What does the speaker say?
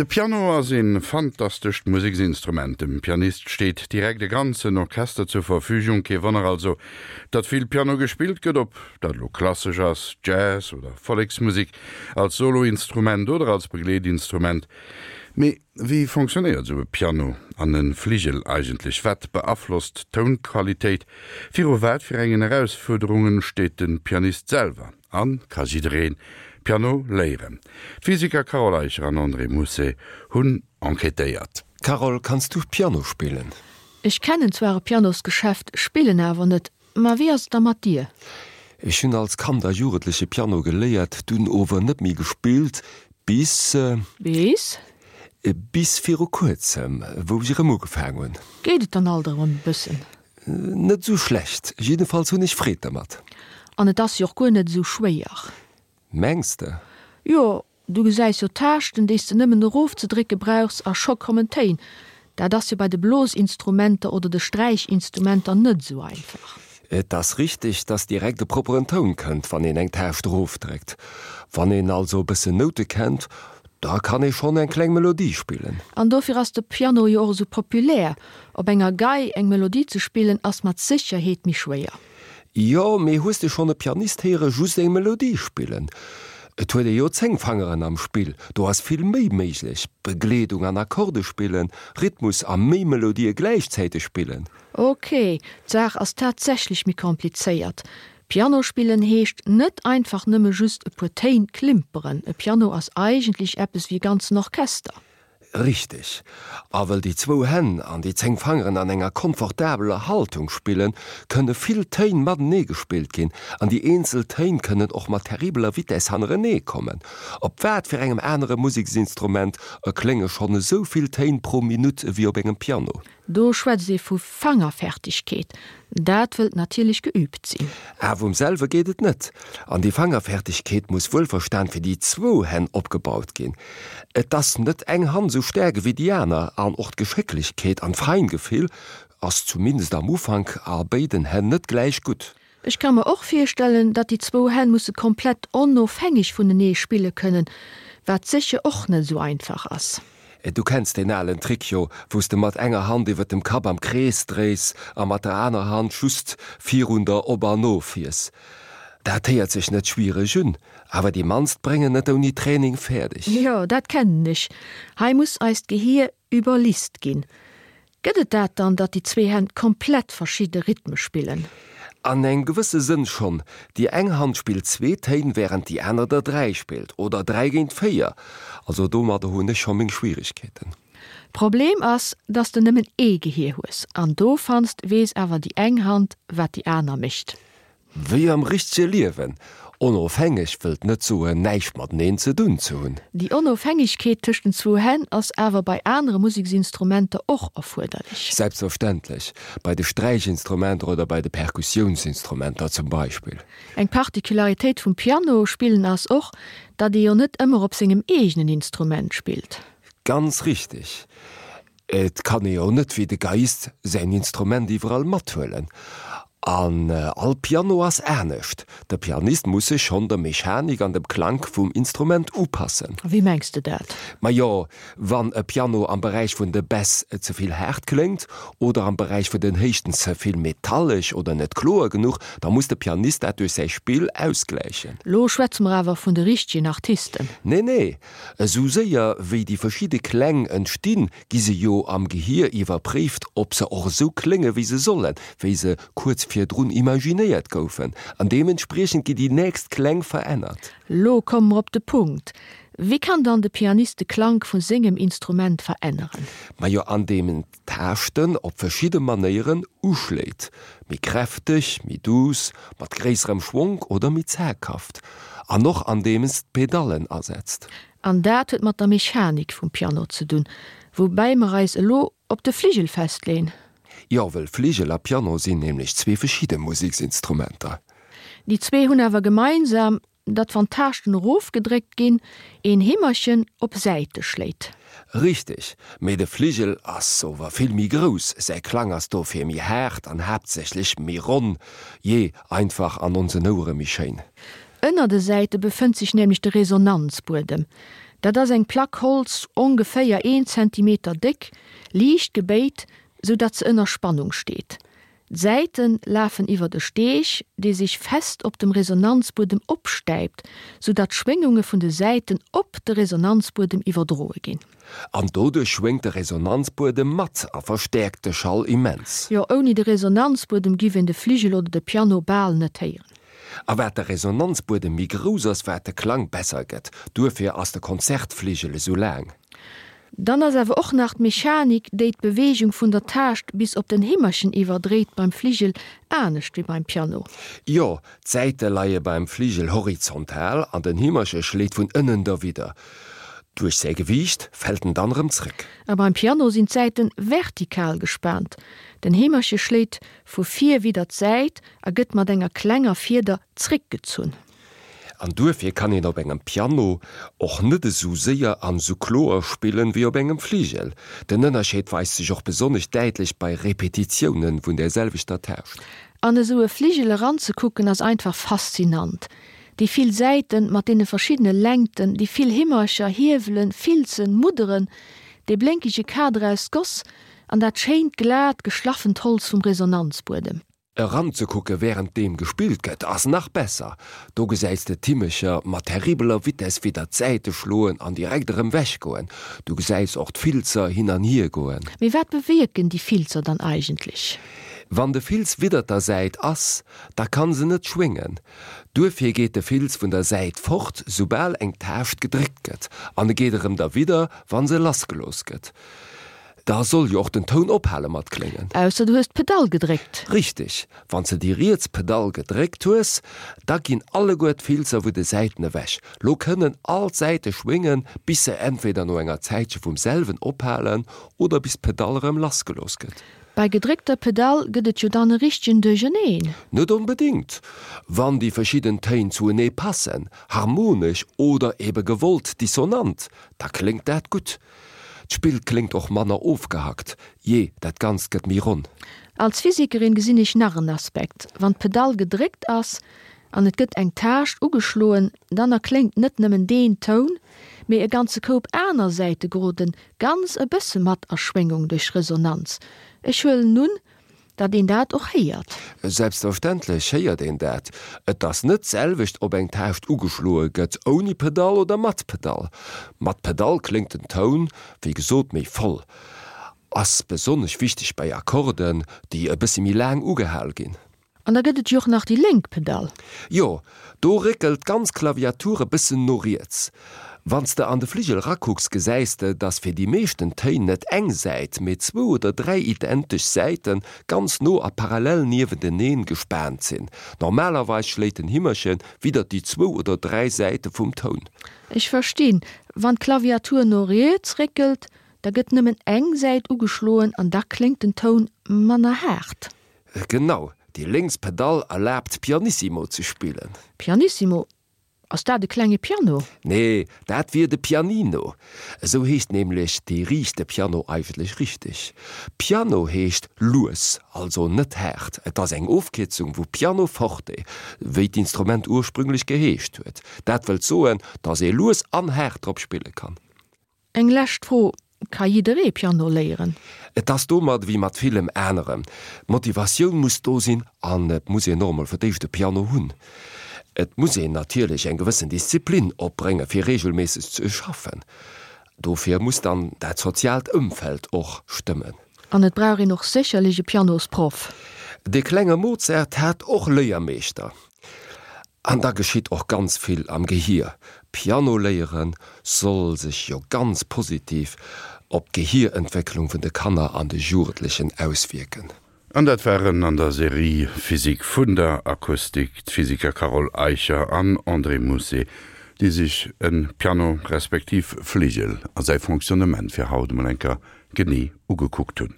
De Piano ass e fantastescht Museksinstrument. Dem Pianist steet direkt e ganzen Orchester zur Verfügung. Kee Wonner also, datt vill Piano gespillt gëtt, ob dat elo klassesch ass, Jazz oder Volleksmusek, als Soloinstrument oder als Begleetinstrument. Mee wéi fonctionnéiert esou e Piano an e Fligel eigentlech? Wat beaflosst d'Tounqualitéit? Viru wat fir engen Erausfuerderunge steet de Pianist selwer? A ka jidderee Piano léieren? D'Physiker Carole Eicher an André Mousset hunn enquêtéiert. Carole, kanns du Piano spillen? Ech kennen zwar e Pianosgeschäft, spillen awer net. Ma wéi ass et da mat dir? Ech hunn als Kand a Jugendleche Piano geléiert, dunn ower net méi gespillt, bis. Bis? Bis viru kuerzem, wou ech erëm ugefaang hunn. Geet et dann alt erëm e bëssen? Net esou schlecht, jiddefalls hunn ech Freed dermat. An et ass jo och guer net esou schwéier. Mengs de? Jo, du gesäis jo d'Taaschten, déi s de nëmmen erofzedrécke brauchs a scho kommen d'Téin. Dat ass jo bei de Blosinstrumenter oder de Sträichinstrumenter net esou einfach. Et ass richteg, dass direkt e propperen Toun kënnt, wann een eng Taascht erofdréckt. Wann een also e bëssen Noute kennt, da kann ee schonn eng kleng Melodie spillen. An dofir ass de Piano jo och esou populär. Op enger Gei eng Melodie ze spillen ass mat Sécherheet méi schwéier. Jo, mee hues de schonn e Pianist héiere just eng Melodie spillen? Et huet ee jo 10 Fangeren am Spill, do ass vill méi méiglech, Begleedung an Akkorde spillen, Rhythmus a méi Melodië gläichzäiteg spillen. Ok, d'Saach ass tatsächlech méi komplizéiert. Piano spillen heescht net einfach nëmme just e puer Téin klimperen. E Piano ass eigentlech eppes wéi e ganzen Orchester. Richteg. A wëll déi zwou Hänn an déi 10 Fangeren an enger komfortabeler Haltung spillen, kënne vill Téin matenee gespillt ginn an déi eenzel Téin kënnen och mat terribeler Vitess hannerenee kommen. Op wat fir engem anere Museksinstrument erklénge schonn esou vill Téin pro Minutt ewéi op engem Piano? Do schwätzt ee vu Fangerfertigkeet. Dat wëllt natierlech geüübt sinn. Awer um selwe geet et net. An déi Fangerfertigkeet muss wuelverstan fir déi zwou Hänn opgebaut ginn. Et ass net eng Hand esou staark ewéi déi aner an och d'Geschécklechkeet an d'Feingefill ass zumindest am Ufank a béiden Hänn net gläich gutt. Ech ka mer och virstellen, datt déi zwou Hänn musse komplett onofhängeg vunenee spille kënnen, wat sécher och net esou einfach ass. Du kenns deen alen Trick jo, wou s de mat enger Hand iwwer dem Kapp am Krees dréis a mat der aner Hand just virun der op an of fiers. Dat héiert sech net schwiereg un, awer déi mannst bréngen et ouni Training fäerdeg. Jo, dat kennen ech. Hei muss eist Gehier Iwwerlist ginn. Gëtt et dat dann, datt déi zwee Hänn komplett verschidde Rhythme spillen? An engem gewësse Sënn schonn. Déi eng Hand spillt zwee Téin, wärend déi aner der dräi spillt, oder dräi géint véier. Also domadder hunn ech scho meng Schwieregkeeten. Problem ass, datt s de nëmmen ee Gehier hues, an dovannst weess awer déi eng Hand, wat déi aner mécht. Wéi am richtege Liewen. Onofhängeg wëllt net soen, näischt mateneen ze dunn ze hunn. Déi Onofhängegkeet tëscht den zwou Hänn ass awer bei anere Museksinstrumenter och erfuerderlech. Selbstverständlech, bei de Sträichinstrumenter oder bei de Perkussiounsinstrumenter zum Beispill. Eng Particularitéit vum Piano spillen ass och, datt ee jo net ëmmer op sengem eegenen Instrument spillt. Ganz richteg. Et kann ee jo net wéi de Geiist säin Instrument iwwerall mathuelen. An all Piano ass anescht. De Pianist muss sech schonn der Mechanik an dem Klank vum Instrument upassen. Wéi mengs de dat? Majo, wann e Piano am Beräich vun de Bäss ze vill haart kléngt oder am Beräich vun den Héichten ze vill metallesch oder net kloer genuch, da muss de Pianist dat duerch säi Spill ausgläichen. Lo schwätze mer awer vun de richtegen Artisten. Nee, nee, Esou séier wéi déi verschidde Kläng entstinn, gi se jo am Gehier iwwerpréift, ob se och esou klénge wéi se sollen, wéi se kuerz virdrun imaginéiert goufen, an deementspriechend gi déi nächst Kläng verännert. Lo komme mer op de Punkt, Wéi kann dann de Pianist de Klank vu sengem Instrument veränneren? Majo andeem en d'Taaschten op verschidde Manéieren uschléit, méi kräfteg, méi duuss, mat gréisserem Schwonk oder méi zaghaft, an och andeems d'Pedallen asetzt. An dat huet mat der Mechanik vum Piano ze dunn, woubäi mer eis elo op de Fligel festleen. Jo, wëll Fligel a Piano sinn nämlech zwee verschidde Museksinstrumenter. Déi zwee hunn awer gemeinsam, Datt wann d'Taaschten erofgedréckt ginn, een Heemerchen op Säite schléit. Richteg, mee de Fligel ass ower vill méi grouss, säi Klang ass dofir méi haart an haaptsächlech méi ronn, jee, einfach an onsen Ouere méi schéin. Ënner de Säite befënnt sech nämlech de Resonanzbuedem. Dat ass eng Plack Holz, ongeféier een Zentimeter déck, liicht gebéit, sou datt se ënner Spannung steet. D'Säite lafen iwwert e Steeg, dee sech fest op dem Resonanzbuedem opstäipt, sou datt d'Schwéngunge vun de Säiten op de Resonanzbuedem iwwerdroe ginn. An doduerch schwéngt de Resonanzbuedem mat a verstäerkt de Schall immens. Jo, ouni de Resonanzbuedem giff een de Fligel oder de Piano bal net héieren. A wat de Resonanzbuedem méi grouss ass, wat de Klang besser gëtt. Duerfir ass de Konzertfligel esou laang. Dann ass awer och nach d'Mechanik, déi d'Beweegung vun der Taascht bis op den Himmerchen iwwerdréit beim Fligel anescht wéi beim Piano. Jo, d'Säite leie beim Fligel horizontal an den Himmerche schléit vun ënnen derwidder. Duerch säi Gewiicht fält en dann erëm zréck. A beim Piano sinn d'Säiten vertikal gespaant. Den Heemerche schléit vu vir widder d'Säit a gëtt mat enger klenger Fieder zréckgezunn. An duerfir kann een op engem Piano och net esou séier an esou kloer spillen wéi op engem Fligel. Den Ënnerscheed weist sech och besonnesch däitlech bei Repetitiounen vun der selwechter Taascht. An esou e Fligel eranzekucken ass einfach faszinant. Déi vill Säiten mat deene verschiddene Längten, déi vill Himmercher, Hiewelen, Filzen, Mudderen, dee blénkege Kader aus Goss an dat schéint glat geschlaffent Holz vum Resonanzbuedem. Eranzekucke wärend deem gespillt gëtt ass nach besser, do gesäis de d'Himmecher mat terribeler Vitess widder d'Säite schloen an direkt erëm wech goen. Du gesäis och d'Filzer hin an hier goen. Mee wat bewierken déi Filzer dann eigentlech? Wann de Filz widder der Säit ass, da kann se net schwéngen. Duerfir geet de Filz vun der Säit fort, soubal eng Taascht gedréckt gëtt, an e geet erëm derwidder, wann se lassgelooss gëtt. Da soll jo och den Toun ophale mat kléngen. Ausser du hues d'Pedall gedréckt. Richteg, wann s de déi riets Pedall gedréckt hues, da ginn alleguer d'Filzer vu de Säiten ewech. Lo kënnen all d'Säite schwéngen, bis se entweder no enger Zäitche vum selwen ophalen oder bis d'Pedall erëm lassgelooss gëtt. Bei gedréckter Pedall gëtt et jo dann e richtegen Duercherneen. Net onbedéngt. Wann déi verschidden Téin zuenee passen, harmonesch oder ebe gewollt dissonant, da kléngt dat gutt. D'Spill kléngt och manner ofgehackt, jee, dat Ganzt gëtt méi ronn. Als Physikerin gesinn ech nach en Aspekt, Wann d'Pedall gedréckt ass an et gëtt eng Taascht ugeschloen, dann erkléngt net nëmmen deen Toun, mee e ganze Koup aner Säite geroden ganz e bësse mat a Schwéngung duerch Resonanz. Ech huelen un, datt een dat och héiert. Selbstverständlech héiert een dat. Et ass net d'selwecht, ob eng Taascht ugeschloe gëtt ouni Pedall oder mat Pedall. Mat Pedall kléngt den Toun, wéi gesot, méi voll. Ass besonnesch wichteg bei Akkorden, déi e bëssi méi laang ugehal ginn. An da gëtt et jo och nach déi lénk Pedall. Jo, do réckelt d'ganz Klaviatur e bëssen no riets. Wann s de an de Fligel rakucks, gesäis de, dass fir déi meeschten Téin net eng Säit, mee zwou oder dräi identesch Säite ganz no a parallel niewenteneen gespaant sinn. Normalerweis schléit den Himmerche widder déi zwou oder dräi Säite vum Toun. Ech verstinn. Wann d'Klaviatur no riets réckelt, da gëtt nëmmen eng Säit ugeschloen an da kléngt den Toun manner haart. Genau, déi lénks Pedall erlaabt Pianissimo ze spillen. Pianissimo? Ass dat e klenge Piano? Nee, dat wier de Pianino. Esou heescht nämlech dee riichte Piano eigentlech richteg. Piano heescht lues, also net haart. Et ass eng Ofkierzung vu Piano forte, wéi d'Instrument ursprünglech geheescht huet. Dat wëllt soen, dass ee lues an haart drop spille kann. Eng lescht Fro, Ka jidderee Piano léieren? Et ass domat ewéi mat villem anerem, d'Motivatioun muss do sinn an et muss een och emol fir d'éischt e Piano hunn. Et muss een natierlech eng gewëssen Disziplin opbrénge fir reegelméisseg ze schaffen. Dofir muss dann dat soziaalt Ëmfeld och stëmmen. An et brauch een och sécherlech e Pianosproff. De klenge Mozart hat och Léiermeeschter. An da geschitt och ganz vill am Gehier. Piano léiere soll sech jo ganz positiv op d'Gehierentwécklung vun de Kanner an de Jugendlechen auswierken. An dat waren an der Serie Physik vun der Akustik d'Physiker Carole Eicher an André Mousset, déi sech e Piano respektiv Fligel a säi Fonctionnement fir haut emol eng Kéier genee ugekuckt hunn.